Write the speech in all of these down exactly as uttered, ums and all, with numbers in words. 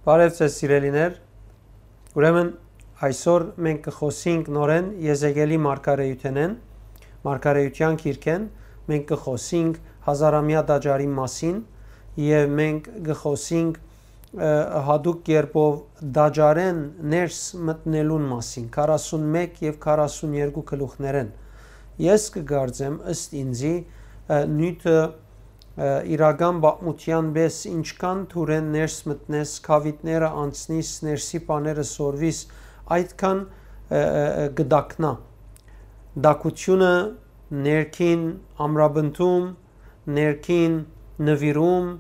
Բարև ձեզ, սիրելիներ։ Ուրեմն այսօր մենք կխոսենք նորեն Եզեկիելի մարգարեութենէն, մարգարեութեան գիրքէն, մենք կխոսենք հազարամյա տաճարի մասին եւ մենք կխոսենք, ը, հատուկ կերպով տաճարէն ներս մտնելուն մասին, քառասուն մէկ եւ քառասուն երկու գլուխներէն։ Ես կկարծեմ, ըստ ինձի, ը, նիւթը, ը, իրական պատմութեան պէս ինչքան դուրէն ներս մտնես, քաւիտները անցնիս, ներսի բաները սորվիս, այդքան, ը, ը, ը, կտակնայ։ Տակութիւնը, ներքին ամրապնդում, ներքին նուիրում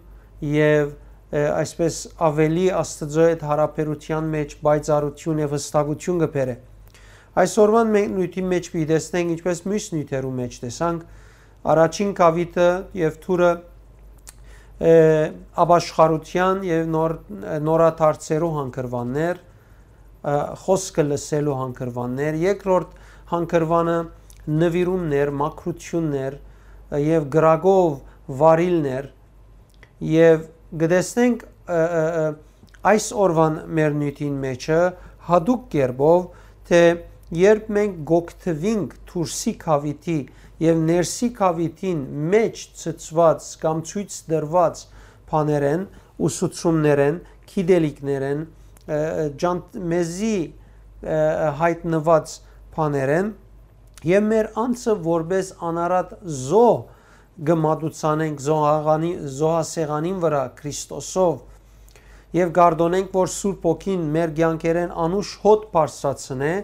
եւ, ը, այսպես ավելի Աստուծոյ հետ յարաբերութեան մէջ պայծառութիւն եւ յստակութիւն կը բերէ։ Այսօրուան մենք նիւթին մէջ պիտի տեսնենք, ինչպես միւս նիւթերու մէջ տեսանք, առաջին քաւիտը եւ դուրը, ը, ապաշխարութեան եւ նոր-, նորադարձերու հանգրուաններ, ը, խօսքը լսելու հանգրուաններ, երկրորդ հանգրուանը նուիրումներ, մաքրութիւններ, ը, եւ կրակով վարիլներ, եւ կը տեսնենք, ը, ը, ը, այս օրուան մեր նիւթին մէջը հատուկ կերպով, թէ երբ մենք կօգտուինք դուրսի քաւիտի եւ ներսի քաւիտին մէջ ցցուած կամ ցոյց տրուած բաներէն, ուսուցումներէն, գիտելիքներէն, ը, ը, ջանդ-, մեզի, ը, ը, յայտնուած բաներէն, եւ մեր անձը որպէս անարատ զոհ կը մատուցանենք զոհաղանի-, զոհասեղանին վրայ Քրիստոսով եւ կարդոնենք, որ Սուրբ Հոգին մեր կեանքերէն անուշ հոտ բարձրացնէ,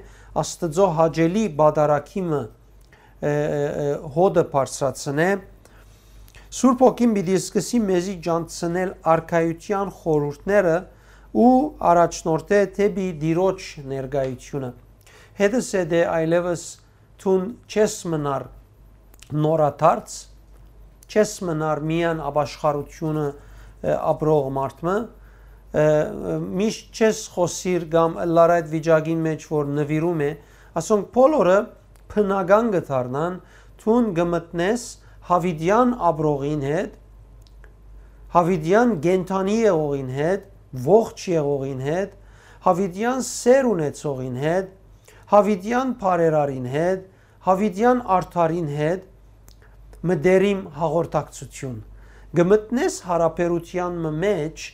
Աստուծոյ հաճելի պատարագի մը, ը, ը, ը, հոտը բարձրացնէ, Սուրբ Հոգին պիտի սկսի մեզի ջանցնել արքայութեան խորհուրդները ու առաջնորդէ դէպի Տիրոջ ներկայութիւնը։ Հետս է դե այլեւս դուն չես մնար նորադարձ, չես մնար միայն ապաշխարութիւնը, ը, ապրող մարդ մը, ը, միշտ չես խօսիր կամ ըլլար այդ վիճակին մէջ, որ նուիրում է, ասոնք բոլորը բնական կը դառնան, դուն կը մտնես յաւիտեան ապրողին հետ, յաւիտեան կենդանի եղողին հետ, ողջ եղողին հետ, յաւիտեան սեր ունեցողին հետ, յաւիտեան բարերարին հետ, յաւիտեան արդարին հետ, մտերիմ հաղորդակցութիւն։ Կը մտնես յարաբերութեան մը մէջ,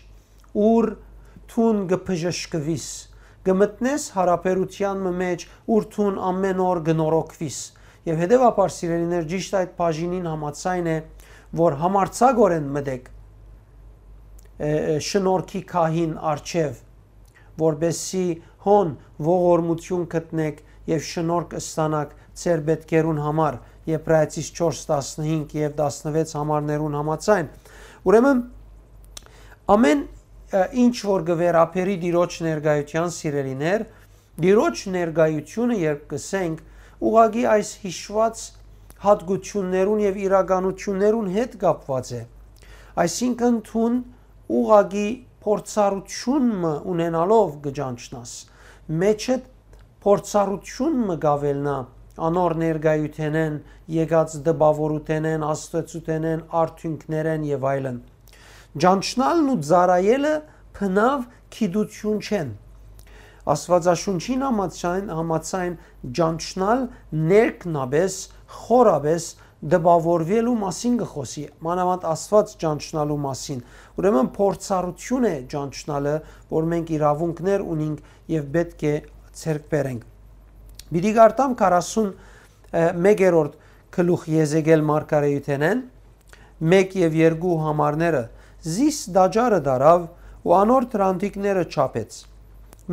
ուր դուն կը բժշկուիս, կը մտնես յարաբերութեան մը մէջ, ուր դուն ամէն օր կը նորոգուիս։ Եւ հետեւաբար, սիրելիներ, ճիշդ այդ բաժինին համաձայն է, որ համարձակօրէն մտեք, ը, ը, շնորհքի քահին առջեւ, որպեսզի հոն ողորմութիւն գտնեք եւ շնորհք ստանաք ձեր պէտքերուն համար, Եբրայեցիս չորս տասնհինգ եւ տասնվեց համարներուն համաձայն։ Ուրեմն, ամէն, ը, ինչ որ կը վերաբերի Տիրոջ ներկայութեան, սիրելիներ, Տիրոջ ներկայութիւնը, երբ կ'ըսենք, ուղղակի այս յիշուած յատկութիւններուն եւ իրականութիւններուն հետ կապուած է։ Այսինքն, դուն ուղղակի փորձառութիւն մը ունենալով կը ճանչնաս, մէջդ փորձառութիւն մը կ'աւելնայ անոր ներկայութենէն, եկած տպաւորութենէն, աստուածութենէն, արդիւնքներէն եւ այլն։ Ճանչնալն ու ծառայելը բնաւ գիտութիւն չեն։ Աստուածաշունչին համաձայն, համաձայն ճանչնալ ներքնաբէս, խորաբէս տպաւորուելու մասին կը խօսի, մանաւանդ Աստուած ճանչնալու մասին։ Ուրեմն փորձառութիւն է ճանչնալը, որ մենք իրաւունքներ ունինք եւ պէտք է ձեռք բերենք։ Պիտի կարդամ քառասուն մեկերորդ գլուխ Եզեկիել մարգարեութենէն, մէկ եւ երկու համարները, զիս տաճարը դարաւ ու անոր դրանտիկները չափեց։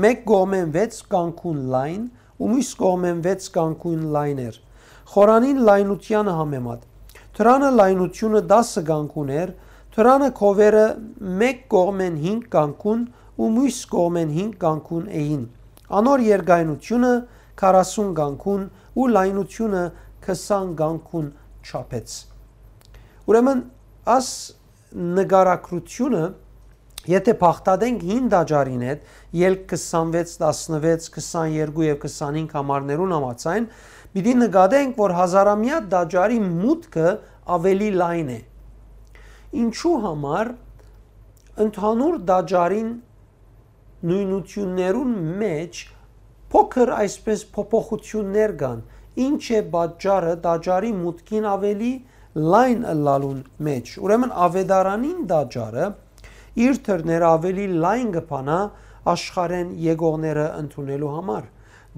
Մէկ կողմէն վեց կանգուն լայն ու միւս կողմէն վեց կանգուն լայն էր, խորանին լայնութեանը համեմատ։ Դրանը լայնութիւնը տասը կանգուն էր, դրանը քովերը մէկ կողմէն հինգ կանգուն ու միւս կողմէն հինգ կանգուն էին։ Անոր երկայնութիւնը քառասուն կանգուն ու լայնութիւնը քսան կանգուն չափեց։ Ուրեմն, աս նկարագրութիւնը, եթե բաղդատենք հին տաճարին հետ, ելք քսանվեց, տասնվեց, քսաներկու եւ քսանհինգ համարներուն համաձայն, պիտի նկատենք, որ հազարամյա տաճարի մուտքը աւելի լայն է։ Ինչու համար ընդհանուր տաճարին նոյնութիւններուն մէջ փոքր այսպէս փոփոխութիւններ կան։ Ի՞նչ է պատճառը տաճարի մուտքին աւելի լայն ըլլալուն մէջ։ Ուրեմն աւետարանին տաճարը իր դռները աւելի լայն կը բանայ աշխարհէն եկողները ընդունելու համար։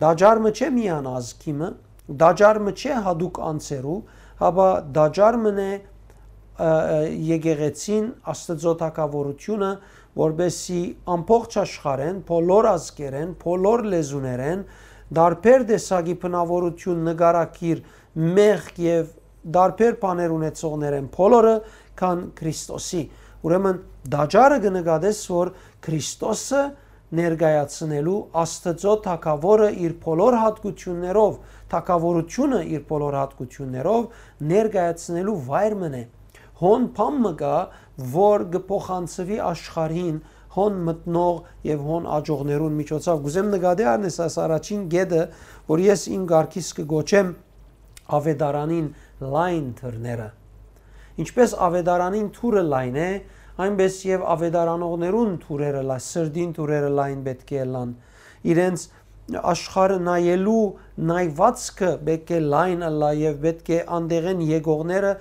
Տաճար մը չէ միայն ազգի մը, տաճար մը չէ յատուկ անձերու, հապա տաճար մըն է, ը, ը, եկեղեցին, Աստուծոյ թագաւորութիւնը, որպէսզի ամբողջ աշխարհէն, բոլոր ազգերէն, բոլոր լեզուներէն, տարբեր տեսակի բնաւորութիւն, նկարագիր, մեղք եւ տարբեր բաներ ունեցողներէն բոլորը գան Քրիստոսի։ Ուրեմն տաճարը կը նկատես, որ Քրիստոսը ներկայացնելու, Աստուծոյ թագաւորը իր բոլոր յատկութիւններով, թագաւորութիւնը իր բոլոր յատկութիւններով ներկայացնելու վայր մըն է։ Հոն բան մը կայ, որ կը փոխանցուի աշխարհին հոն մտնող եւ հոն աջողներուն միջոցով։ Կ'ուզեմ նկատի առնես այս առաջին կետը, որ ես իմ կարգիս կը կոչեմ աւետարանին լայն դռները։ Ինչպէս աւետարանին դուռը լայն է, այնպէս եւ աւետարանողներուն դուռերը լա-, սրտին դուռերը լայն պէտք է ըլլան։ Իրենց աշխարհը նայելու նայվածքը պէտք է լայն ըլլայ եւ պէտք է անդեղէն եկողները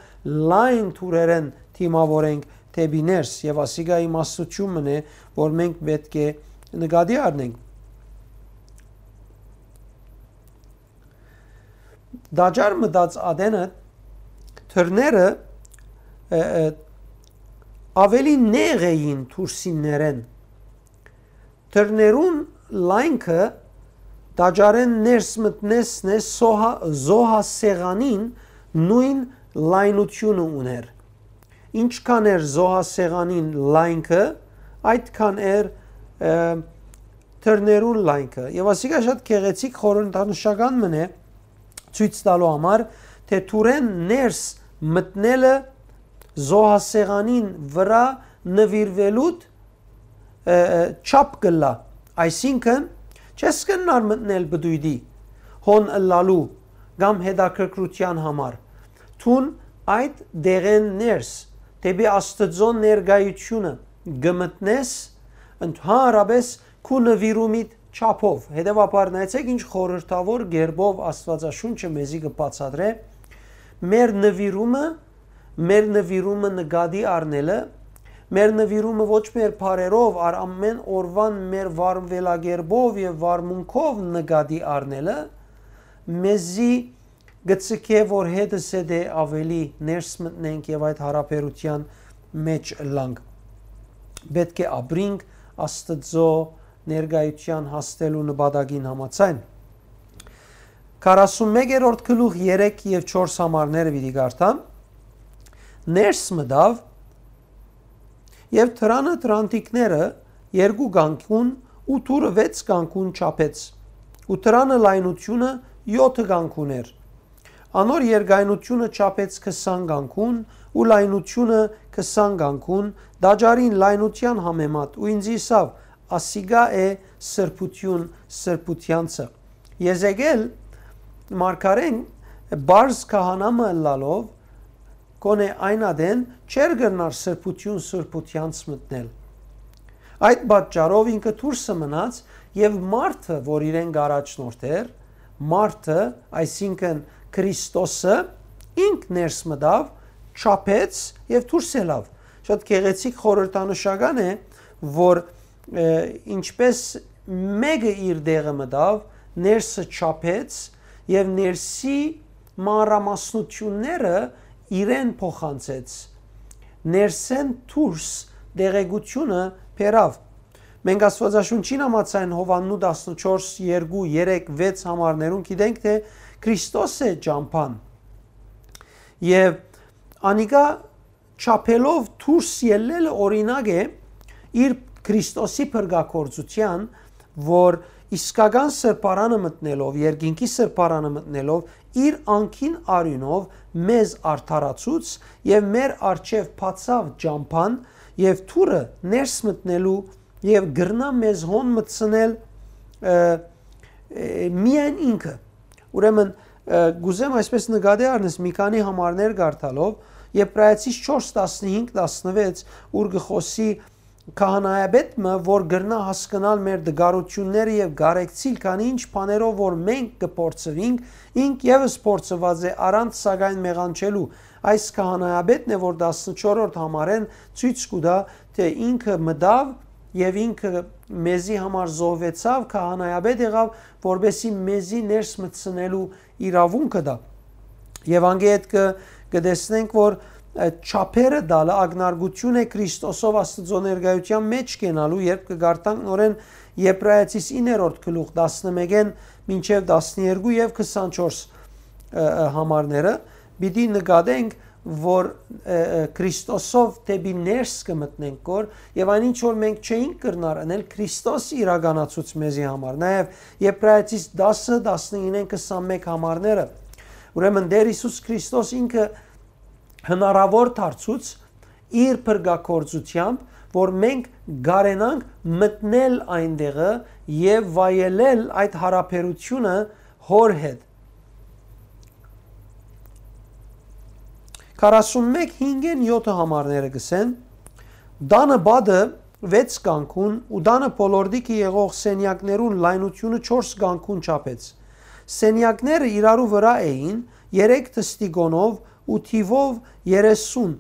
լայն դուռերէն դիմաւորենք դէպի ներս, եւ ասիկա իմաստութիւն մըն է, որ մենք պէտք է նկատի առնենք։ Տաճար մտած ատենը դռները, ը, ը, աւելի նեղ էին դուրսիններէն։ Դռներուն լայնքը տաճարէն ներս մտնեսն է սոհա-, զոհասեղանին նոյն լայնութիւնը ունէր։ Ինչքան էր զոհասեղանին լայնքը, այդքան էր, ը, դռներուն լայնքը։ Եւ ասիկա շատ գեղեցիկ խորհրդանշական մըն է, ցոյց տալու համար, թէ դուռէն ներս մտնելը զոհասեղանին վրայ նուիրուելուդ, ը, ը, չափ կ'ըլլայ։ Այսինքն, չես կրնար մտնել պտոյտի, հոն ըլլալու կամ հետաքրքրութեան համար։ Դուն այդ դեղէն ներս, դէպի Աստուծոյ ներկայութիւնը կը մտնես, ընդհանրապէս քու նուիրումիդ չափով։ Հետեւաբար, նայեցէք ինչ խորհրդաւոր կերպով Աստուածաշունչը մեզի կը բացատրէ մեր նուիրումը, մեր նուիրումը նկատի առնելը, մեր նուիրումը ոչ մեր բառերով, այլ ամէն օրուան մեր վարվելակերպով եւ վարմունքով նկատի առնելը, մեզի գցկէ, որ հետզհետէ աւելի ներս մտնենք եւ այդ յարաբերութեան մէջ ըլլանք։ Պէտք է ապրինք Աստուծոյ ներկայութեան հասնելու նպատակին համաձայն։ Քառասունմեկերորդ գլուխ երեք եւ չորս համարները պիտի կարդամ։ Ներս մտաւ եւ դրանը դրանտիկները երկու կանգուն ու դուռը վեց կանգուն չափեց, ու դրանը լայնությունը յոթը կանգուն էր։ Անոր երկայնությունը չափեց քսան կանգուն ու լայնությունը քսան կանգուն, տաճարին լայնութեան համեմատ, ու ինձ ըսաւ. «Ասիկա է սրբութիւն սրբութեանցը»։ Եզեկել մարգարեն, պարզ քահանայ մը ըլլալով, կոնե այն ատեն չէր կրնար սրբութիւն սրբութեանց մտնել։ Այդ պատճառով ինքը դուրսը մնաց, եւ մարդը, որ իրեն կ'առաջնորդէր, մարդը, այսինքն Քրիստոսը, ինք ներս մտաւ, չափեց եւ դուրս ելաւ։ Շատ գեղեցիկ խորհրդանշական է, որ, ը, ինչպես մէկը իր տեղը մտաւ, ներսը չափեց եւ ներսի մանրամասնութիւնները իրեն փոխանցեց, ներսէն դուրս տեղեկութիւնը բերաւ։ Մենք Աստուածաշունչին համաձայն Յովհաննու տասնչորս, երկու, երեք, վեց համարներուն գիտենք, թէ Քրիստոս է ճամբան։ Եւ անիկա չափելով դուրս ելլելը օրինակ է իր Քրիստոսի փրկագործութեան, որ իսկական սրբարանը մտնելով, երկինքի սրբարանը մտնելով, իր անկին արիւնով մեզ արդարացուց եւ մեր առջեւ բացաւ ճամբան եւ դուռը ներս մտնելու եւ կրնայ մեզ հոն մտցնել, ը, ը, միայն ինքը։ Ուրեմն, ը, կ'ուզեմ այսպես նկատի առնես մի քանի համարներ կարդալով, Եբրայեցիս չորս, տասնհինգ, տասնվեց, ուր կը խօսի քահանայապետ մը, որ կրնայ հասկնալ մեր տկարութիւնները եւ կարեկցիլ, քանի ինչ բաներով որ մենք կը փորձուինք, ինք եւս փորձուած է առանց սակայն մեղանչելու։ Այս քահանայապետն է, որ տասնչորրորդ համարէն ցոյց կու տայ, թէ ինքը մտաւ եւ ինքը մեզի համար զոհուեցաւ, քահանայապետ եղաւ, որպեսզի մեզի ներս մտցնելու իրաւունքը տայ։ Եւ անգէ հետ կը, կը տեսնենք, որ, ը, չափերը տալը ակնարկութիւն է Քրիստոսով Աստուծոյ ներկայութեան մէջ կենալու, երբ կը կարդանք նորէն Եբրայեցիս իններորդ գլուխ, տասնմէկէն մինչեւ տասներկու եւ քսանչորս, ը, ը, համարները, պիտի նկատենք, որ, ը, ը, Քրիստոսով դէպի ներս կը մտնենք, որ, եւ այն ինչ որ մենք չէինք կրնար ընել, Քրիստոս իրականացուց մեզի համար։ Նաեւ Եբրայեցիս տասը, տասնինէն քսանմէկ համարները։ Ուրեմն Տէր Յիսուս Քրիստոս ինքը հնարաւոր դարձուց իր փրկագործութեամբ, որ մենք կարենանք մտնել այնտեղը եւ վայելել այդ յարաբերութիւնը Հօր հետ։ Քառասունմէկ հինգէն եթը համարները կ'ըսեն. «Տանը պատը վեց կանգուն ու տանը բոլորտիքը եղող սենեակներուն լայնութիւնը չորս կանգուն չափեց։ Սենեակները իրարու վրայ էին, երեք թստիկոնով ու թիւով երեսուն,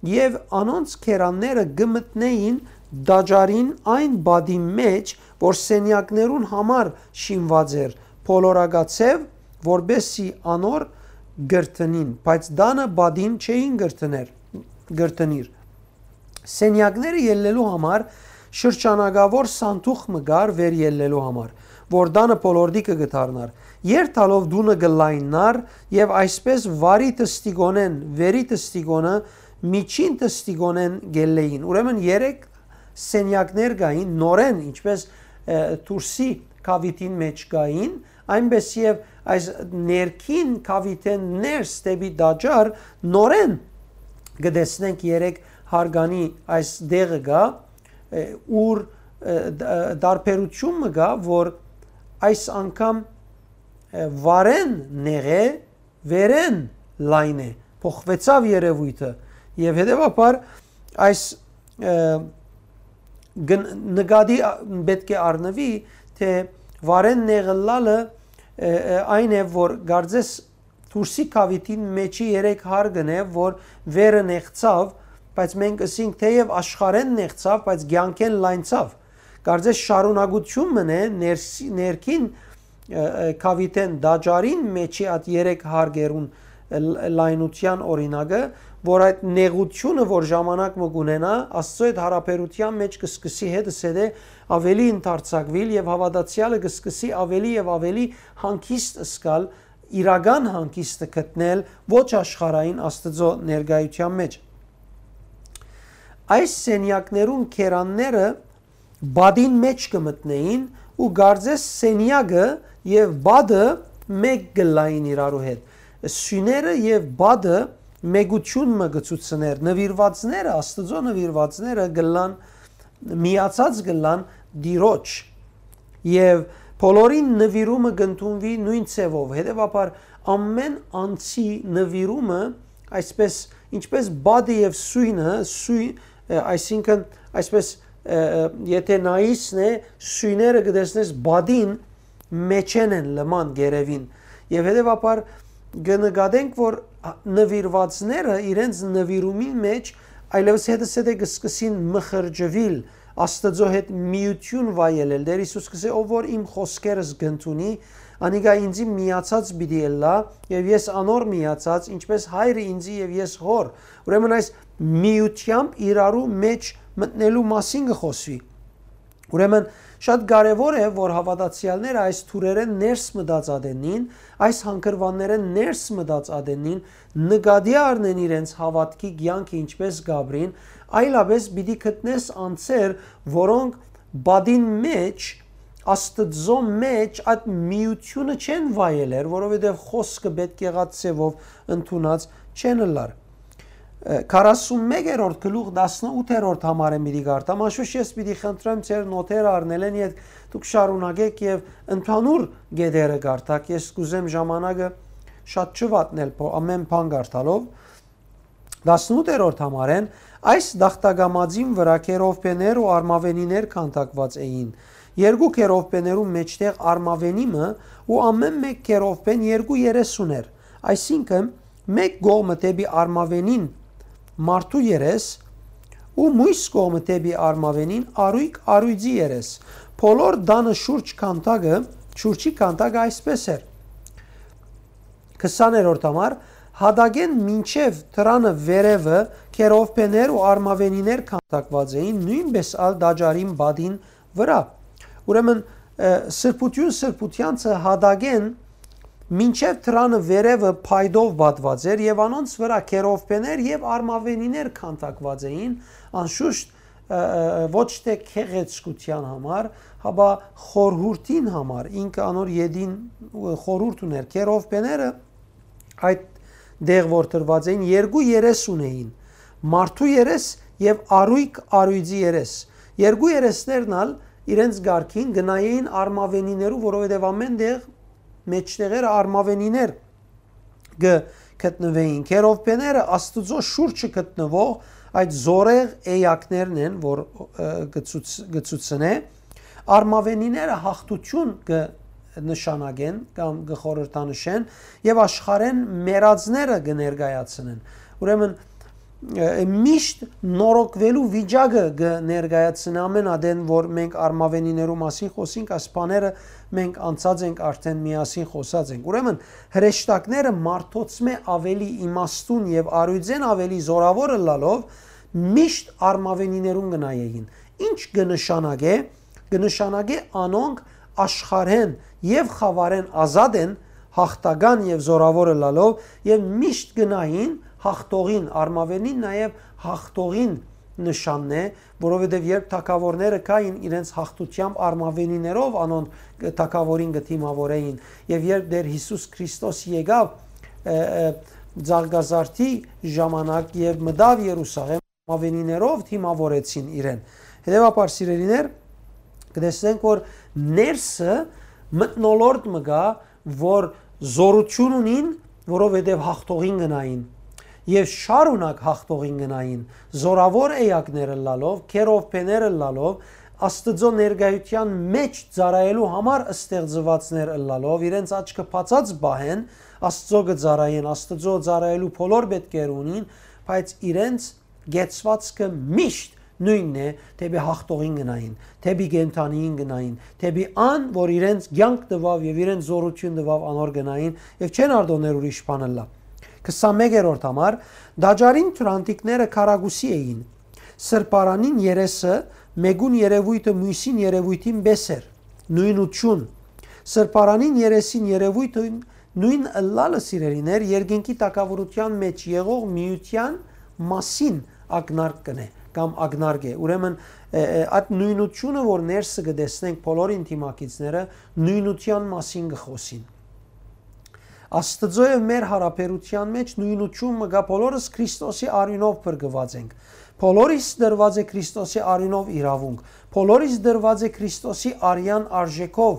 եւ անոնց քերանները կը մտնէին տաճարին այն պատին մէջ, որ սենեակներուն համար շինուած էր, բոլորակաձեւ, որպեսզի անոր կրթնին, բայց տանը պատին չէին կրթներ, կրթնիր։ Սենեակները ելլելու համար շրջանակաւոր սանդուղ մը կար վեր ելլելու համար, որ տանը բոլորտիքը կը դառնար։ Երթալով տունը կը լայննար եւ այսպես վարի թստիկոնէն, վերի թստիկոնը, միջին թստիկոնէն կ'ելլէին»։ Ուրեմն երեք սենեակներ կային, նորէն, ինչպես, ը, դուրսի կաւիթին մէջ կային, այնպես եւ այս ներքին կաւիթէն ներս դէպի տաճար նորէն կը տեսնենք երեք հարկանի այս դեղը կայ, ը, ուր, ը, դ-, ը, տարբերութիւն մը կայ, որ այս անգամ, ը, վարէն նեղ է, վերէն լայն է, փոխուեցաւ երեւոյթը, եւ հետեւաբար այս, ը, գն-, նկատի ա-, պէտք է առնուի, թէ վարէն նեղ ըլլալը, ը, ը, այն է, որ կարծես դուրսի կաւիթին մէջի երեք հարկն է, որ վերը նեղցաւ, բայց մենք ըսինք թէեւ աշխարհէն նեղցաւ, բայց կեանքէն լայնցաւ։ Կարծես շարունակութիւն մըն է ներսի-, ներքին, ը, ը, կաւիթէն տաճարին մէջի այդ երեք հարկերուն, ը, լ-, լայնութեան օրինակը, որ այդ նեղութիւնը, որ ժամանակ մը կունենայ, Աստծոյ հետ յարաբերութեան մէջ կը սկսի հետզհետէ աւելի ընդարձակուիլ եւ հաւատացեալը կը սկսի աւելի եւ աւելի հանգիստ զգալ, իրական հանգիստը գտնել ոչ աշխարհային Աստծոյ ներկայութեան մէջ։ Այս սենեակներուն քերանները պատին մէջ կը մտնէին ու կարծես սենեակը եւ պատը մէկ կ'ըլլային իրարու հետ։ Սիւները եւ պատը մէկութիւն մը կը ցուցնէր, նուիրուածները, Աստուծոյ նուիրուածները կ'ըլլան միացած կ'ըլլան Տիրոջ, եւ բոլորին նուիրումը կ'ընդունուի նոյն ձեւով։ Հետեւաբար, ամէն անձի նուիրումը, այսպես, ինչպես պատը եւ սոյնը, սոյ-, ը, այսինքն, այսպես, ը, ը, եթե նայիսն է, սոյները կը տեսնես պատին մէջէն են լման գերեւին։ Եւ հետեւաբար կը նկատենք, որ նուիրուածները իրենց նուիրումին մէջ այլեւս հետզհետե կը սկսին մխրճուիլ, Աստուծոյ հետ միութիւն վայելել։ Տէր Յիսուս կ'ըսէ. «Ով որ իմ խօսքերս կ'ընդունի, անիկա ինծի միացած պիտի ըլլայ, եւ ես անոր միացած, ինչպես Հայրը ինծի եւ ես Հօր»։ Ուրեմն այս միութեամբ իրարու մէջ մտնելու մասին կը խօսուի։ Ուրեմն շատ կարեւոր է, որ հաւատացեալները այս թուրերէն ներս մտած ատենին, այս հանգրուաններէն ներս մտած ատենին, նկատի առնեն իրենց հաւատքի կեանքը ինչպես կ'ապրին, այլապէս պիտի գտնես անձեր, որոնք պատին մէջ, Աստծոյ մէջ այդ միութիւնը չեն վայելեր, որովհետեւ խօսքը պէտք եղած ձեւով ընդունած չեն ըլլար։ Ը, քառասունմեկերորդ գլուխ, տասնութերորդ համարը պիտի կարդամ, անշուշտ ես պիտի խնդրեմ ձեր նոթերը առնելէն յետ դուք շարունակեք եւ ընդհանուր գետերը կարդաք, ես կ'ուզեմ ժամանակը շատ չվատնել, փո-, ամեն բան կարդալով։ Տասնութերորդ համարէն, Այս տախտակամածին վրայ քերովբեներ ու արմաւենիներ քանդակուած էին։ Երկու քերովբեներուն մէջտեղ արմաւենի մը ու ամէն մէկ քերովբեն երկու երես ունէր, այսինքն՝ մէկ կողմը դէպի արմաւենին մարդու երես ու միւս կողմը դէպի արմաւենին առոյկ առոյծի երես։ Բոլոր տանը շուրջ քանդակը, շուրջի քանդակը այսպէս էր. քսաներորդ համար, հատակէն մինչեւ դրանը վերեւը քերովբեներ ու արմաւենիներ քանդակուած էին, նոյնպէս ալ տաճարին պատին վրայ։ Ուրեմն, սրբութիւն սրբութեանցը հատակէն մինչեւ դրանը վերեւը փայտով պատուած էր եւ անոնց վրայ քերովբեներ եւ արմաւենիներ քանդակուած էին, անշուշտ, ոչ թէ գեղեցկութեան համար, հապա խորհուրդին համար, ինքը անոր ետին խորհուրդ ունէր։ Քերովբեները այդ տեղ որ դրուած էին, երկու երես ունէին, մարդու երես եւ առոյկ առոյծի երես։ Երկու երեսներն ալ իրենց կարգին կը նայէին արմաւենիներու, որովհետեւ ամէն տեղ մէջտեղերը արմաւենիներ կը գտնուէին։ Քերովբեները Աստուծոյ շուրջը գտնուող այդ զորեղ էակներն են, որ, ը, կը ցուց-, կը ցուցնէ, արմաւենիները յաղթութիւն կը նշանակեն կամ կը խորհրդանշեն եւ աշխարհէն մեռածները կը ներկայացնեն։ Ուրեմն, ը, միշտ նորոգուելու վիճակը կը ներկայացնէ ամէն ատեն, որ մենք արմաւենիներու մասին խօսինք, այս բաները մենք անցած ենք, արդէն միասին խօսած ենք։ Ուրեմն, հրեշտակները մարդոցմէ աւելի իմաստուն եւ առոյծէն աւելի զօրաւոր ըլլալով, միշտ արմաւենիներուն կը նայէին։ Ի՞նչ կը նշանակէ, կը նշանակէ անոնք աշխարհէն եւ խաւարէն ազատ են, յաղթական եւ զօրաւոր ըլլալով, եւ միշտ կը նային յաղթողին, արմաւենին նաեւ յաղթողին նշանն է, որովհետեւ երբ թագաւորները կային իրենց յաղթութեամբ արմաւենիներով անոնք թագաւորին կը դիմաւորէին, եւ երբ Տէր Յիսուս Քրիստոս եկաւ, ը, ը, Ծաղկազարդի ժամանակ եւ մտաւ Երուսաղէմ, արմաւենիներով դիմաւորեցին իրեն։ Հետեւաբար, սիրելիներ, կը տեսնենք, որ ներսը մթնոլորտ մը կայ, որ զօրութիւն ունին, որովհետեւ յաղթողին կը նային եւ շարունակ յաղթողին կը նային, զօրաւոր էակներ ըլլալով, քերովբեներ ըլլալով, Աստուծոյ ներկայութեան մէջ ծառայելու համար ստեղծուածներ ըլլալով, իրենց աչքը բացած պահեն, Աստուծոյ կը ծառայեն, Աստուծոյ ծառայելու բոլոր պէտքերը ունին, բայց իրենց կեցուածքը միշտ նոյնն է, դէպի յաղթողին կը նային, դէպի կենդանիին կը նային, դէպի ան, որ իրենց կեանք տուաւ եւ իրենց զօրութիւն տուաւ, անոր կը նային եւ չեն արտոններ ուրիշ բան ըլլայ։ Քսանմեկերորդ համար, տաճարին թուրանտիկները քառակուսի էին։ Սրբարանին երեսը մէկուն երեւոյթը միւսին երեւոյթին պէս էր, նոյնութիւն։ Սրբարանին երեսին երեւոյթը նոյն ըլլալը, սիրելիներ, երկինքի թագաւորութեան մէջ եղող միութեան մասին ակնարկ կ'ընէ կամ ակնարկ է։ Ուրեմն, ը, ը, այդ նոյնութիւնը, որ ներսը կը տեսնենք բոլոր ինտիմակիցները, նոյնութեան մասին կը խօսին։ Աստուծոյ եւ մեր յարաբերութեան մէջ նոյնութիւն մը կայ, բոլորս Քրիստոսի արիւնով փրկուած ենք։ Բոլորիս տրուած է Քրիստոսի արիւնով իրաւունք։ Բոլորիս տրուած է Քրիստոսի արեան արժէքով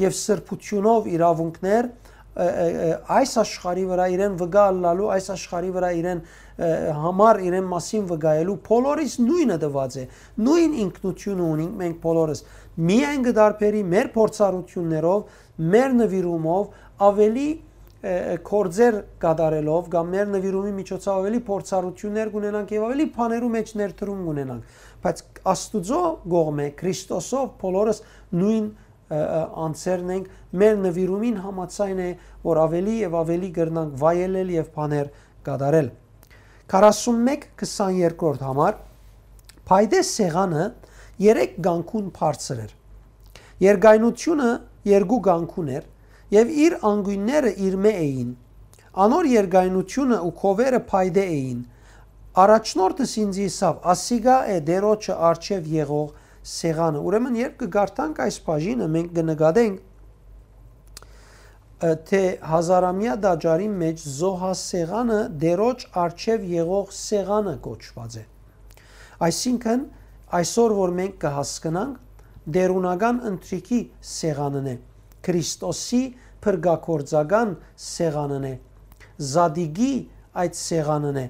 եւ սրբութիւնով իրաւունքներ, ը, ը, ը, այս աշխարհի վրայ իրեն վկայ ըլլալու, այս աշխարհի վրայ իրեն, ը, համար իրեն մասին վկայելու, բոլորիս նոյնը տուած է, նոյն ինքնութիւնը ունինք մենք բոլորս։ Միայն կը տարբերի մեր փորձառութիւններով, մեր նուիրումով, աւելի, ը, ը, գործեր կատարելով կամ մեր նուիրումի միջոցով աւելի փորձառութիւններ կունենանք եւ աւելի բաներու մէջ ներդրում կունենանք, բայց Աստուծոյ կողմէ, Քրիստոսով, բոլորս նոյն, ը, ը, անձերն ենք, մեր նուիրումին համաձայն է, որ աւելի եւ աւելի կրնանք վայելել եւ բաներ կատարել։ Քառասունմեկ քսաներկրորդ համար, փայտե սեղանը երեք կանգուն բարձր էր։ Երկայնութիւնը երկու կանգուն էր եւ իր անկիւնները իրմէ էին։ Անոր երկայնութիւնը ու քովերը փայտե էին։ Առաջնորդս ինձ ըսաւ. «Ասիկա է Տիրոջը առջեւ եղող սեղանը»։ Ուրեմն, երբ կը կարդանք այս բաժինը, մենք կը նկատենք, ը, թէ հազարամեայ տաճարին մէջ զոհասեղանը Տիրոջ առջեւ եղող սեղանը կոչուած է։ Այսինքն, այսօր որ մենք կը հասկնանք, տէրունական ընթրիքի սեղանն է, Քրիստոսի փրկագործական սեղանն է, Զատիկի այդ սեղանն է,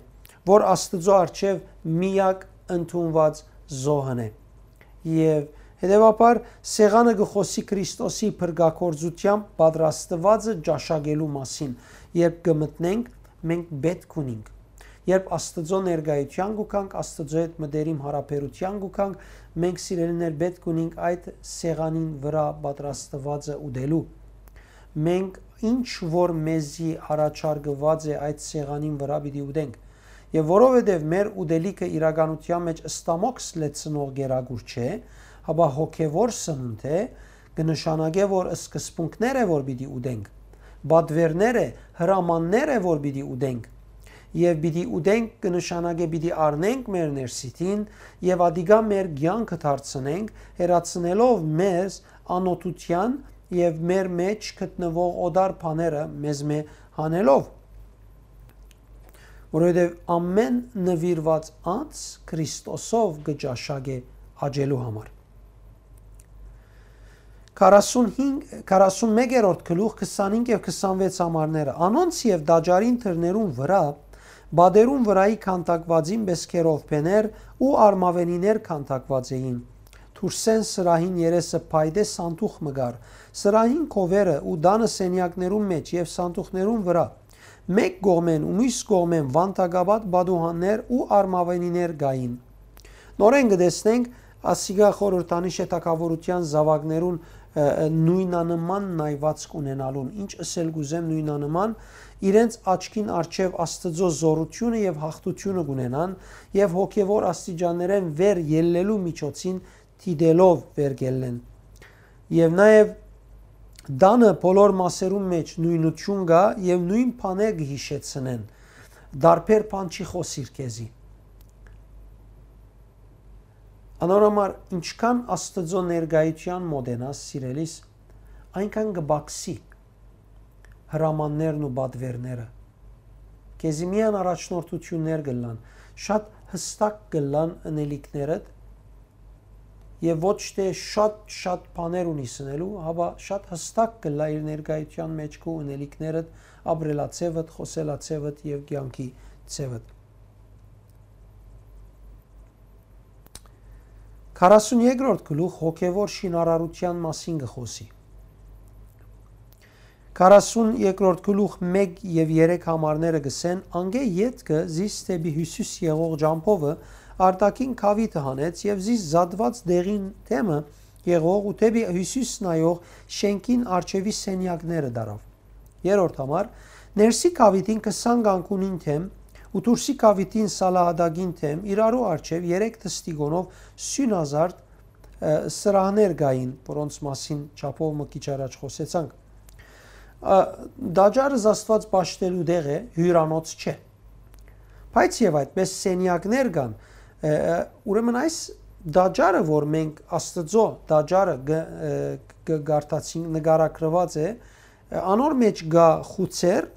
որ Աստուծոյ առջեւ միակ ընդունուած զոհն է։ Եւ հետեւաբար սեղանը կը խօսի Քրիստոսի փրկագործութեամբ պատրաստուածը ճաշակելու մասին, երբ կը մտնենք, մենք պէտք ունինք։ Երբ Աստուծոյ ներկայութեան կու գանք, Աստուծոյ հետ մտերիմ յարաբերութեան կու գանք, մենք, սիրելիներ, պէտք ունինք այդ սեղանին վրայ պատրաստուածը ուտելու։ Մենք ինչ որ մեզի առաջարկուած է, այդ սեղանին վրայ պիտի ուտենք։ Եւ որովհետեւ մեր ուտելիքը իրականութեան մէջ ստամոքս լեցնող կերակուր չէ, հապա հոգեւոր սնունդ է, կը նշանակէ, որ սկզբունքներ է, որ պիտի ուտենք, պատուէրներ է, հրամաններ է, որ պիտի ուտենք։ Եւ պիտի ուտենք կը նշանակէ պիտի առնենք մեր ներսիդին եւ ատիկա մեր կեանքը դարձնենք, հեռացնելով մեզ անօթութեան եւ մեր մէջ գտնուող օտար բաները մեզմէ հանելով, որովհետեւ ամէն նուիրուած անձ Քրիստոսով կը ճաշակէ աճելու համար։ Քառասունհինգ, քառասունմեկերորդ գլուխ, քսանհինգ եւ քսանվեց համարները։ Անոնց եւ տաճարին դռներուն վրայ, պատերուն վրայի քանդակուածին պէս քերովբեներ ու արմաւենիներ քանդակուած էին։ Դուրսէն սրահին երեսը փայտե սանդուղ մը կար։ Սրահին քովերը ու տանը սենեակներուն մէջ եւ սանդուղներուն վրայ, մէկ կողմէն ու միւս կողմէն վանտակապատ պատուհաններ ու արմաւենիներ կային։ Նորէն կը տեսնենք, ասիկա խորհրդանիշ է թագաւորութեան զաւակներուն, ը, ը, նոյնանման նայուածք ունենալուն, ինչ ըսել կ'ուզեմ նոյնանման, իրենց աչքին առջեւ Աստուծոյ զօրութիւնը եւ յաղթութիւնը կ'ունենան եւ հոգեւոր աստիճաններէն վեր ելլելու միջոցին դիտելով վեր կ'ելլեն։ Եւ նաեւ տանը բոլոր մասերուն մէջ նոյնութիւն կայ եւ նոյն բաներ կը յիշեցնեն։ Տարբեր բան չի խօսիր քեզի։ Անոր համար, ինչքան Աստուծոյ ներկայութեան մօտենաս, սիրելիս, այնքան կը պակսի հրամաններն ու պատուէրները։ Քեզի միայն առաջնորդութիւններ կ'ըլլան, շատ յստակ կ'ըլլան ընելիքներդ եւ ոչ թէ շատ, շատ բաներ ունիս ընելու, հապա շատ յստակ կ'ըլլայ իր ներկայութեան մէջ քու ընելիքներդ, ապրելաձեւդ, խօսելաձեւդ եւ կեանքի ձեւդ։ Քառասունեքերորդ գլուխ հոգեվոր շինարարութեան մասին կը խօսի։ Քառասունեքերորդ գլուխ մէկ եւ երեք համարները կ'ըսեն. «Անկէ ետքը զիս դէպի հիւսիս եղող ճամբովը արտաքին քաւիթը հանեց եւ զիս զատուած դեղին թեմը եղող ու դէպի հիւսիս նայող շէնքին առջեւի սենեակները տարաւ»։ Երրորդ համար. «Ներսի քաւիթին քսան կանգունին թեմ ու դուրսի քաւիթին սալահատակին թեմ իրարու առջեւ երեք թստիկոնով սիւնազարդ, ը, սրահներ կային, որոնց մասին չափով մը քիչ առաջ խօսեցանք»։ Ա, տաճարը զաստուած պաշտելու տեղ է, հիւրանոց չէ։ Բայց եւ այդպես սենեակներ կան, ը, ը, ուրեմն այս տաճարը, որ մենք Աստուծոյ տաճարը գ-, ը, գ-, գարտացինք, նկարագրուած է, ը, անոր մէջ կայ խուցեր,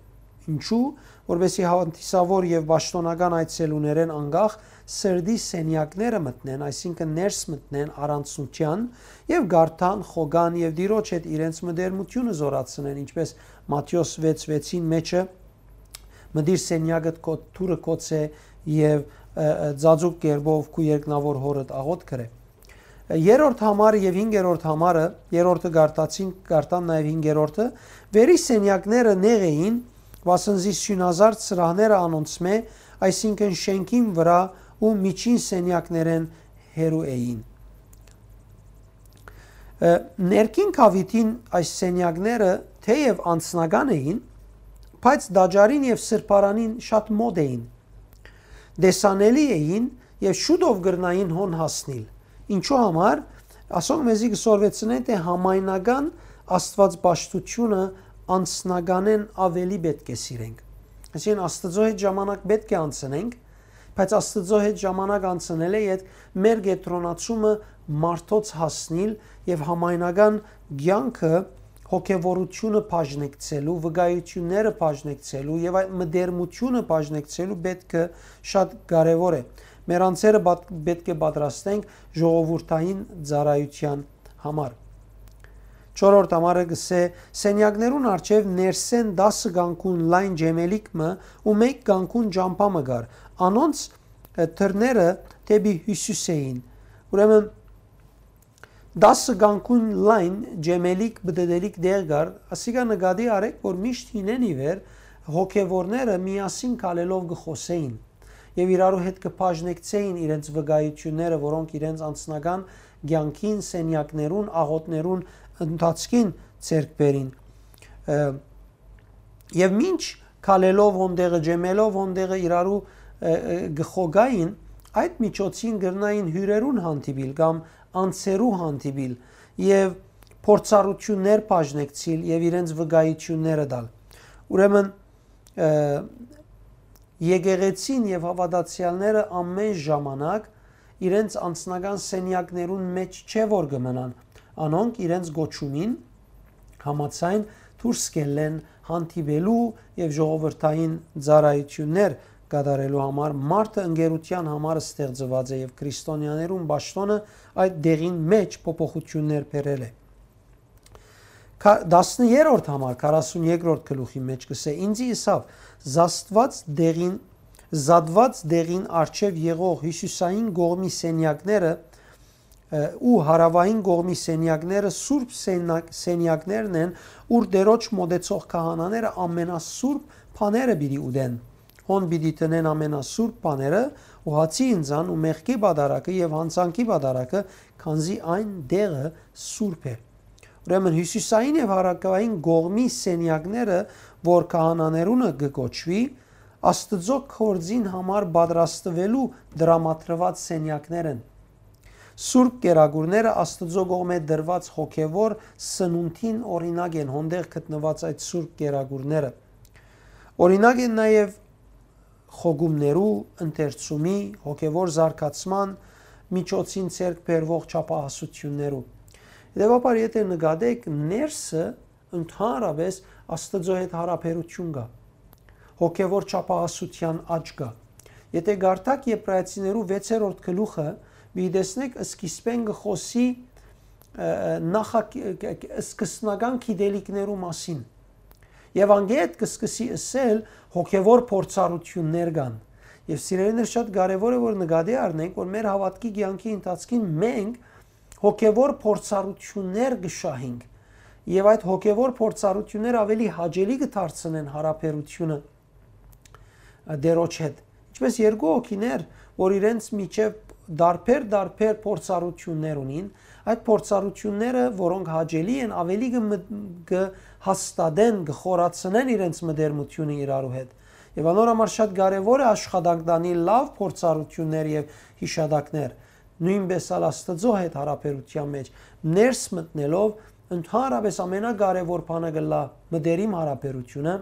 ինչու, որպեսզի հանդիսավոր եւ պաշտօնական այցելուներէն անկախ սրտի սենեակները մտնեն, այսինքն ներս մտնեն առանցնութեան եւ գարտան, խոկան եւ Տիրոջ հետ իրենց մտերմութիւնը զօրացնեն, ինչպես Մատթէոս վեց վեցին մէջը. «Մտիր սենեակդ քո դուռը կոց է եւ, ը, ը, ծածուկ կերպով քու երկնաւոր հօրդ աղօթք կրե»։ Երրորդ համարը եւ հինգերորդ համարը, երրորդը գարտացին, գարտան նաեւ հինգերորդը, վերի սենեակները նեղ էին, վասն զի սիւնազարդ սրահները անոնցմէ, այսինքն շէնքին վրայ ու միջին սենեակներէն հեռու էին։ Ը, ներքին քաւիթին այս սենեակները թէեւ անձնական էին, բայց տաճարին եւ սրբարանին շատ մօտ էին, տեսանելի էին եւ շուտով կրնային հոն հասնիլ։ Ինչու համար, ասոնք մեզի կը սորվեցնեն, թէ համայնական աստուածպաշտութիւնը անձնականէն աւելի պէտք է սիրենք։ Այսինքն, Աստուծոյ հետ ժամանակ պէտք է անցնենք, բայց Աստուծոյ հետ ժամանակ անցնելէ ետք մեր կեդրոնացումը մարդոց հասնիլ եւ համայնական կեանքը հոգեվորութիւնը բաժնեկցելու, վկայութիւնները բաժնեկցելու եւ այդ մտերմութիւնը բաժնեկցելու պէտքը շատ կարեւոր է։ Մեր անձերը պատ-, պէտք է պատրաստենք ժողովուրդային ծառայութեան համար։ Չորրորդ համարը կ'ըսէ. «Սենեակներուն առջեւ ներսէն տասը կանգուն լայն ջեմելիք մը ու մէկ կանգուն ճամբայ մը կար, անոնց, ը, դռները դէպի հիւսիս էին։ Ուրեմն, տասը կանգուն լայն ջեմելիք, պտտելիք տեղ կար, ասիկա նկատի առէք, որ միշտ հինէն ի վեր հոգեվորները միասին քալելով կը խօսէին եւ իրարու հետ կը բաժնեկցէին իրենց վկայութիւնները, որոնք իրենց անձնական կեանքին, սենեակներուն, աղօթներուն ընթացքին ձեռք բերին։ Ը, եւ մինչ քալելով հոն տեղը, ջեմելով հոն տեղը, իրարու, ը, ը, կը խոգային, այդ միջոցին կրնային հիւրերուն հանդիպիլ կամ անձերու հանդիպիլ եւ փորձառութիւններ բաժնեկցիլ եւ իրենց վկայութիւնները տալ։ Ուրեմն, ը, եկեղեցին եւ հաւատացեալները ամէն ժամանակ իրենց անձնական սենեակներուն մէջ չէ որ կը մնան։ Անոնք իրենց կոչումին համաձայն դուրս կ'ելլեն հանդիպելու եւ ժողովրդային ծառայութիւններ կատարելու համար, մարդը ընկերութեան համար ստեղծուած է եւ քրիստոնեաներուն պաշտօնը այդ դեղին մէջ փոփոխութիւններ բերել է։ Քա-, տասներորդ համար, քառասուն երկրորդ գլուխի մէջ կ'ըսէ. «Ինձի ըսաւ. Զաստուած դեղին, զատուած դեղին առջեւ եղող հիւսիսային կողմի սենեակները, ը, ու հարաւային կողմի սենեակները սուրբ սենակ-, սենեակներն են, ուր Տերոջ մօտեցող քահանաները ամենասուրբ բաները պիտի ուտեն։ Հոն պիտի դնեն ամենասուրբ բաները ու հացի ինձան ու մեղքի պատարակը եւ յանցանքի պատարակը, քանզի այն տեղը սուրբ է»։ Ուրեմն հիւսիսային եւ հարաւային կողմի սենեակները, որ քահանաներունը կը կոչուի, Աստուծոյ գործին համար պատրաստուելու տրամադրուած սենեակներ են։ Սուրբ կերակուրները Աստուծոյ կողմէ տրուած հոգեվոր սնունդին օրինակ են, հոն տեղ գտնուած այդ սուրբ կերակուրները։ Օրինակ են նաեւ խոգումներու, ընթերցումի, հոգեվոր զարգացման միջոցին ձեռք բերուող չափահասութիւններու։ Հետեւաբար, եթէ նկատեք, ներսը ընդհանրապէս Աստուծոյ հետ յարաբերութիւն կայ, հոգեվոր չափահասութեան աճ կայ։ Եթէ կարդաք Եբրայեցիներու վեցերորդ գլուխը, պիտի տեսնեք, սկիզբէն կը խօսի, ը, ը, նախա-, ը, ը, սկզբնական գիտելիքներու մասին։ Եւ անգէտ կը սկսի ըսել, հոգեվոր փորձառութիւններ կան։ Եւ սիրելիներ, շատ կարեւոր է, որ նկատի առնենք, որ մեր հաւատքի կեանքի ընթացքին մենք հոգեվոր փորձառութիւններ կը շահենք։ Եւ այդ հոգեվոր փորձառութիւնները աւելի հաճելի կը դարձնեն յարաբերութիւնը, ը, Տերոջ հետ։ Ինչպէս երկու հոգիներ, որ իրենց միջեւ տարբեր-տարբեր փորձառութիւններ ունին, այդ փորձառութիւնները, որոնք հաճելի են, աւելի կը մտ-, կը հաստատեն, կը խորացնեն իրենց մտերմութիւնը իրարու հետ։ Եւ անոր համար շատ կարեւոր է աշխատանք տանի լաւ փորձառութիւններ եւ յիշատակներ։ Նոյնպէս ալ Աստուծոյ հետ յարաբերութեան մէջ ներս մտնելով, ընդհանրապէս ամենակարեւոր բանը կ'ըլլայ մտերիմ յարաբերութիւնը,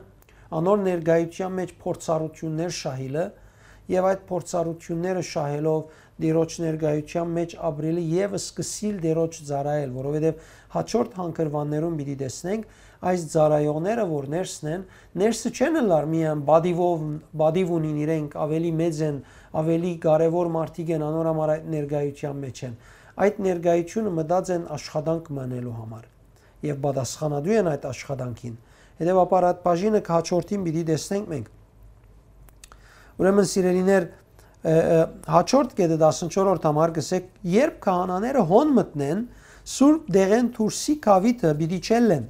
անոր ներկայութեան մէջ փորձառութիւններ շահիլը եւ այդ փորձառութիւնները շահելով Տիրոջ ներկայութեան մէջ ապրիլը եւ սկսիլ Տիրոջ ծառայել, որովհետեւ հաջորդ հանգրուաններուն պիտի տեսնենք, այս ծառայողները որ ներսն են, ներսը չեն ըլլար միայն պատիվով, պատիվ ունին իրենք, աւելի մեծ են, աւելի կարեւոր մարդիկ են, անոր համար այդ ներկայութեան մէջ են։ Այդ ներկայութիւնը մտած են աշխատանք մնելու համար եւ պատասխանատու են այդ աշխատանքին։ Հետեւաբար, այդ բաժինը հաջորդին պիտի տեսնենք մենք։ Ուրեմն, սիրելիներ, ը, ը, հաջորդ կետը, տասնչորսերորդ համար, կ'ըսէ. «Երբ քահանաները հոն մտնեն, սուրբ դեղէն դուրսի գաւիթը պիտի չելլեն,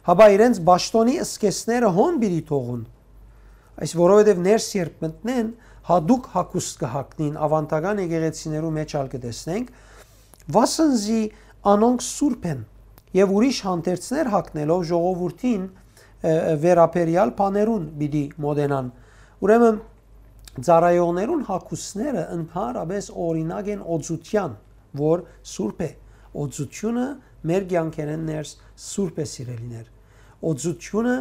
հապա իրենց պաշտօնի սկեսները հոն պիտի թողուն։ Այս որովհետեւ ներս երբ մտնեն, յատուկ հագուստ կը հագնին, աւանդական եկեղեցիներու մէջ ալ կը տեսնենք, վասն զի անոնք սուրբ են, եւ ուրիշ հանդերձներ հագնելով ժողովուրդին, ը, ը, վերաբերեալ բաներուն պիտի մոտենան»։ Ուրեմն, ծառայողներուն հագուստները ընդհանրապէս օրինակ են օծութեան, որ սուրբ է։ Օծութիւնը մեր կեանքերէն ներս սուրբ է, սիրելիներ։ Օծութիւնը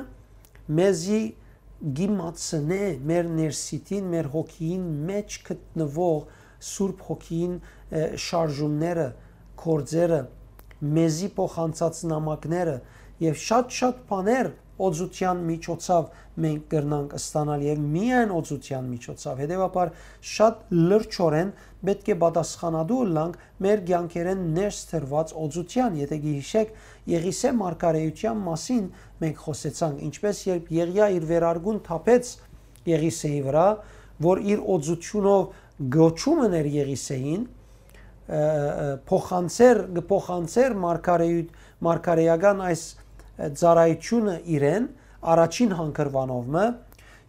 մեզի կ'իմացնէ մեր ներսիտին, մեր հոգիին մէջ գտնուող Սուրբ Հոգիին, ը, շարժումները, գործերը, մեզի փոխանցած նամակները եւ շատ-շատ բաներ օծութեան միջոցով մենք կրնանք ստանալ եւ միայն օծութեան միջոցով։ Հետեւաբար, շատ լրջորեն պէտք է պատասխանատու ըլլանք մեր կեանքերէն ներս դրուած օծութեան։ Եթէ գիհիշեք, Եղիսէ մարգարէութեան մասին մենք խօսեցանք, ինչպէս երբ Եղիա իր վերարկուն թափեց Եղիսէի վրայ, որ իր օծութիւնով կոչում ըներ Եղիսեին, ը, ը, փոխանցեր, կը փոխանցեր մարգարեի-, մարգարեական այս, ը, ծառայութիւնը իրեն, առաջին հանգրուանով մը,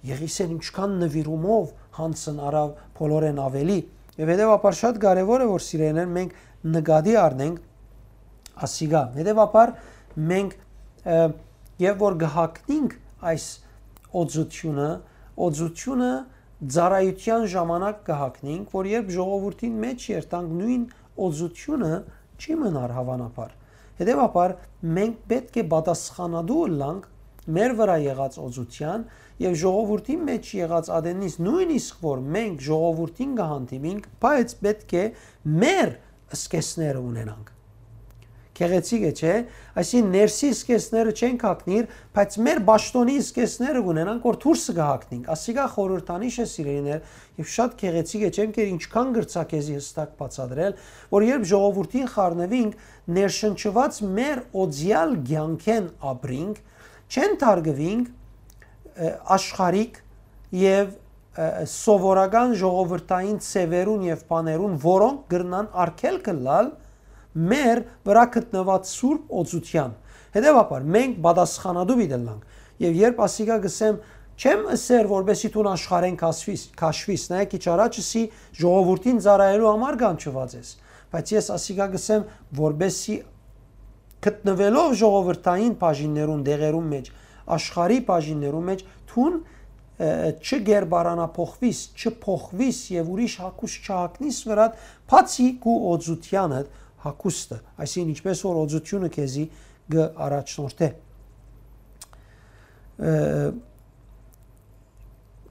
Եղիսեն ինչքան նուիրումով յանձն առաւ բոլորէն աւելի։ Եւ հետեւաբար շատ կարեւոր է, որ սիրելիներ, մենք նկատի առնենք ասիկա։ Հետեւաբար մենք, ը, եւ որ կը հագնենք այս օծութիւնը, օծութիւնը ծառայութեան ժամանակ կը հագնենք, որ երբ ժողովուրդին մէջ երթանք, նոյն օծութիւնը չի մնար, հաւանաբար։ Հետեւաբար մենք պէտք է պատասխանատու ըլլանք մեր վրայ եղած օծութեան եւ ժողովուրդին մէջ եղած ատենից, նոյնիսկ որ մենք ժողովուրդին կը հանդիպինք, բայց պէտք է մեր սկիզբները ունենանք։ Գեղեցիկ է, չէ՞։ Այսինքն, ներսի սկիզբները չենք հագնիր, բայց մեր պաշտօնի սկիզբները կունենանք, որ դուրսը կը հագնենք։ Ասիկա խորհրդանիշ է, սիրելիներ, եւ շատ գեղեցիկ է, չեմ կեր ինչքան գրցա քեզի հստակ բացատրել, որ երբ ժողովուրդին խառնուինք, ներշնչուած մեր օծեալ կեանքէն ապրինք, չեն թարգուինք, ը, աշխարհիկ եւ, ը, սովորական ժողովրդային ձեւերուն եւ բաներուն, որոնք կրնան արգելք ըլլալ մեր վրայ գտնուած սուրբ օծութեան։ Հետեւաբար, մենք պատասխանատու պիտի ըլլանք։ Եւ երբ ասիկա կ'ըսեմ, չեմ ըսեր, որպեսզի դուն աշխարհէն քաշվիս, քաշվիս, նայեք, քիչ առաջ ըսի, ժողովուրդին ծառայելու համար կանչուած ես, բայց ես ասիկա կ'ըսեմ, որպեսզի գտնուելով ժողովրդային բաժիններուն, դեղերուն մէջ, աշխարհի բաժիններուն մէջ, դուն, ը, չկերպարանափոխվիս, չփոխվիս եւ ուրիշ հագուստ չհագնիս վրադ, բացի քու օծութեանդ հագուստը, այսինքն, ինչպես որ օծութիւնը քեզի կը առաջնորդէ։ Ը,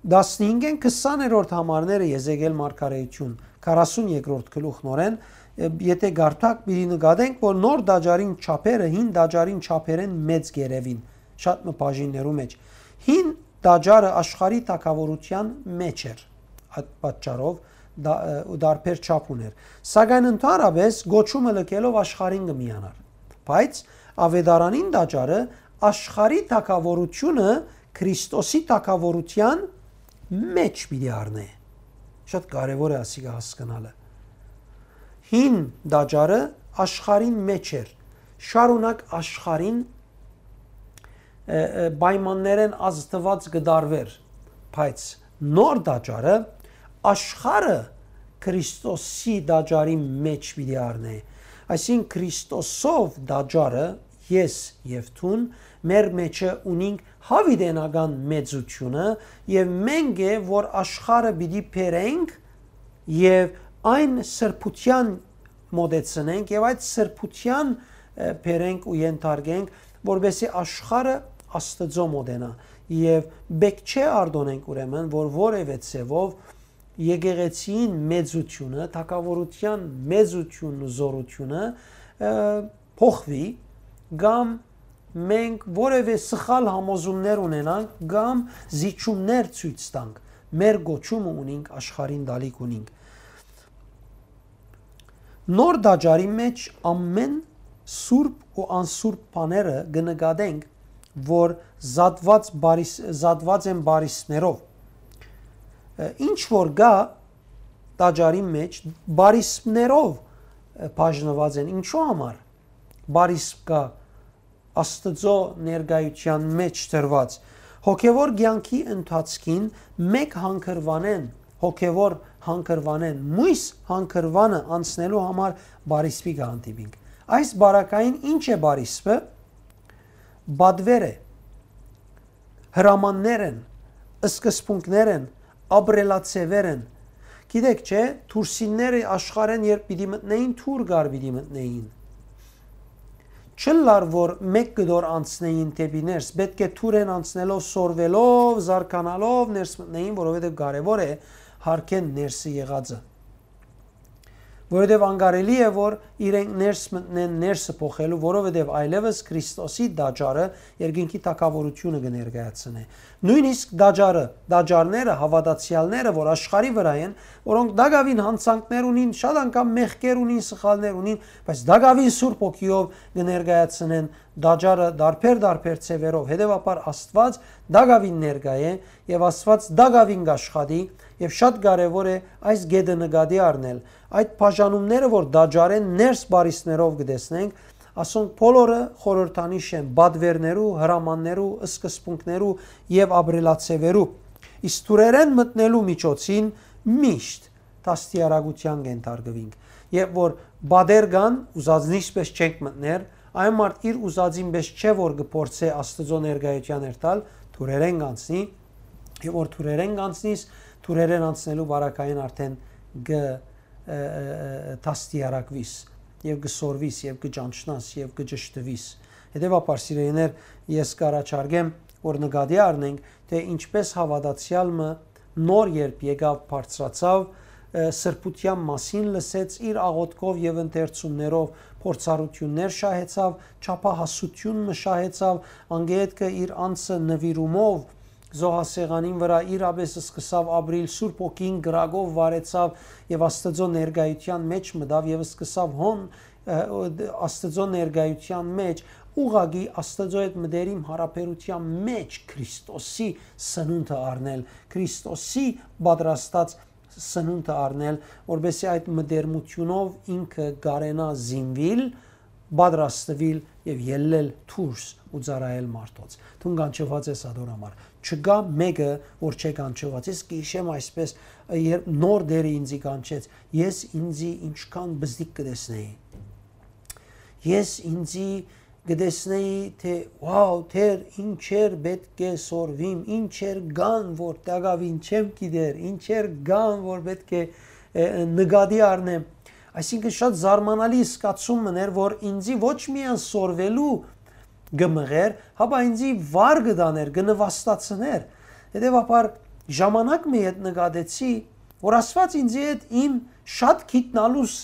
տասնհինգէն քսաներորդ համարները Եզեկիել մարգարեութիւն, քառասուն երկրորդ գլուխ նորէն, ը, եթէ կարդաք, պիտի նկատենք, որ նոր տաճարին չափերը հին տաճարին չափերէն մեծ կ'երեւին, շատ մը բաժիններու մէջ։ Հին տաճարը աշխարհի թագաւորութեան մէջ էր, այդ պատճառով դա, ը, ու դարբեր չափ ունէր։ Սակայն ընդհանրապես գոչումը լքելով աշխարհին կը միանար։ Բայց Ավետարանին տաճարը աշխարհի թագաւորութիւնը Քրիստոսի թագաւորութեան մէջ պիտի առնէ։ Շատ կարեւոր է ասիկա հասկնալը։ Հին տաճարը աշխարհին մէջ էր, շարունակ աշխարհին, ը, ը, պայմաններէն ազդուած կը դարվեր, բայց նոր տաճարը աշխարհը Քրիստոսի տաճարի մէջ պիտի առնէ։ Այսինքն, Քրիստոսով տաճարը, ես եւ դուն, մեր մեջը ունինք յաւիտենական մեծութիւնը եւ մենք է, որ աշխարհը պիտի բերենք եւ այն սրբութեան մոտեցնենք եւ այդ սրբութեան, ը, բերենք ու ենթարկենք, որպեսզի աշխարհը Աստծո մոտենայ։ Եւ պէտք չէ արտօնենք ուրեմն, որ որեւէ ձեւով եկեղեցիին մեծութիւնը, թագաւորութեան մեծութիւնն ու զօրութիւնը, ը, փոխուի, կամ մենք որեւէ սխալ համոզումներ ունենանք, կամ զիջումներ ցոյց տանք, մեր գոչումը ունինք, աշխարհին տալիք ունինք։ Նոր տաճարի մէջ ամէն սուրբ ու անսուրբ բաները կը նկատենք, որ զատված բարիս-, զատված են բարիսպներով։ Ը, ինչ որ կա տաճարի մէջ, բարիսպներով, ը, բաժնված են։ Ինչու համար բարիսպ կա Աստծո ներկայութեան մէջ դրված։ Հոգեվոր կեանքի ընթացքին մէկ հանգրուանեն, հոգեվոր հանգրուանեն, մոյս հանգրուանը անցնելու համար բարիսպի կը հանդիպինք։ Այս բարակային ինչ է բարիսպը։ Բադվեր է, հրամաններ են, սկզբունքներ են, ապրելաձևեր են։ Գիտեք, չէ՞, թուրսինները աշխարհեն երբ պիտի մտնեին, թուր կար պիտի մտնեին։ Չըլլար, որ մէկ կտոր անցնեին դէպի ներս, պէտք է թուրեն անցնելով, սորվելով, զարգանալով ներս մտնեին, որովհետեւ կարեւոր է հարկեն ներսը եղածը։ Որովհետեւ անկարելի է, որ իրենք ներս մտնեն ներսը փոխելու, որովհետեւ այլեւս Քրիստոսի տաճարը երկնքի թագաւորութիւնը կը ներկայացնէ։ Նոյնիսկ տաճարը, տաճարները, հաւատացեալները, որ աշխարհի վրայ են, որոնք տակաւին յանցանքներ ունին, շատ անգամ մեղքեր ունին, սխալներ ունին, բայց տակաւին Սուրբ Հոգիով կը ներկայացնեն տաճարը դարբեր-դարբեր ձևերով։ Հետեւաբար Աստուած տակաւին ներկայ է եւ Աստուած տակաւին կ'աշխատի Եւ շատ կարեւոր է այս կետը նկատի առնել։ Այդ բաժանումները, որ տաճարէն ներս պարիսներով կը տեսնենք, ասոնք բոլորը խորհրդանիշ են պատվերներու, հրամաններու, սկզբունքներու եւ ապրելաձեւերու։ Իսկ թուրերէն մտնելու միջոցին միշտ դաստիարակութեան կ'ենթարկուինք։ Երբ որ պատեր կան, ուզածնի պես չենք մտներ, այն մարդ իր ուզածին պես չէ որ կը փորձէ Աստուծոյ ներկայութեան երթալ, թուրերէն կ'անցնի, եւ որ թուրերէն կ'անցնիս, թուրերէն անցնելու պարագային արդէն կը, ը, ը, ը, դաստիարակուիս, եւ կը սորվիս, եւ կը ճանչնաս, եւ կը ճշտուիս։ Հետեւաբար, սիրելիներ, ես կ'առաջարկեմ, որ նկատի առնենք, թէ ինչպէս հաւատացեալ մը նոր երբ եկաւ, բարձրացաւ, ը, սրբութեան մասին լսեց, իր աղօթքով եւ ընթերցումներով փորձառութիւններ շահեցաւ, չափահասութիւն մը շահեցաւ, անգեհետքը իր անձը նուիրումով զոհասեղանին վրայ իրապէս սկսաւ ապրիլ, Սուրբ Հոգին կրակով վարեցաւ եւ Աստուծոյ ներկայութեան մէջ մտաւ եւ սկսաւ հոն, ը, Աստուծոյ ներկայութեան մէջ ուղղակի Աստուծոյ հետ մտերիմ յարաբերութեան մէջ Քրիստոսի սնունդը առնել, Քրիստոսի պատրաստած սնունդը առնել, որպեսզի այդ մտերմութիւնով ինքը կարենայ զինուիլ, պատրաստուիլ եւ ելլել դուրս ու ծառայել մարդոց։ Դուն կանչուած ես ատոր համար։ Չկայ մէկը, որ չէ կանչուած։ Ես կ'հիշեմ այսպես, երբ նոր Տէրը ինձի կանչեց, ես ինձի ինչքան բզդիկ կը տեսնէի։ Ես ինձի կը տեսնէի, թէ, «Wow, Տէր, ինչեր պէտք է սորվիմ, ինչեր կան, որ տակաւին չեմ գիտեր, ինչեր կան, որ պէտք է, ը, ը, նկատի առնեմ»։ Այսինքն, շատ զարմանալի զգացում մըն էր, որ ինձի ոչ միայն սորվելու կը մղեր, հապա ինձի վար կը տաներ, կը նվաստացներ։ Հետեւաբար, ժամանակ մը յետ նկատեցի, որ Աստուած ինձի հետ իմ շատ գիտնալուս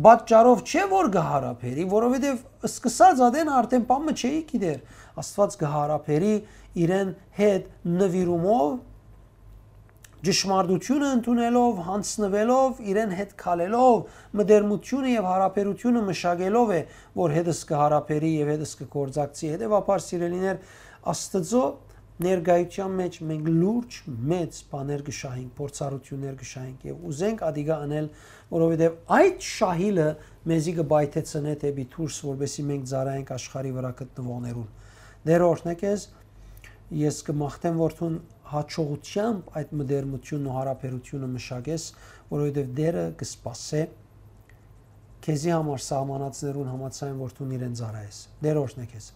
պատճառով չէ, որ կը յարաբերի, որովհետեւ սկսած ատեն արդէն բան մը չէի գիտեր։ Աստուած կը յարաբերի իրեն հետ նուիրումով, ճշմարտութիւնը ընդունելով, յանձնուելով, իրեն հետ քալելով, մտերմութիւնը եւ յարաբերութիւնը մշակելով է, որ հետս կը յարաբերի եւ հետս կը գործակցի։ Հետեւաբար, սիրելիներ, Աստուծոյ ներկայութեան մէջ մենք լուրջ մեծ բաներ կը շահենք, փորձառութիւններ կը շահենք եւ ուզենք ատիկա ընել, որովհետեւ այդ շահիլը մեզի կը պայթեցնէ դէպի դուրս, որպեսզի մենք ծառայենք աշխարհի վրայ գտնուողներուն։ Տէր օրհնե քեզ, ես կը մաղթեմ, որ դուն յաջողութեամբ այդ մտերմութիւնն ու յարաբերութիւնը մշակես, որովհետեւ Տէրը կը սպասէ քեզի համար սահմանածներուն համաձայն, որ դուն իրեն ծառայես։ Տէր օրհնե քեզ։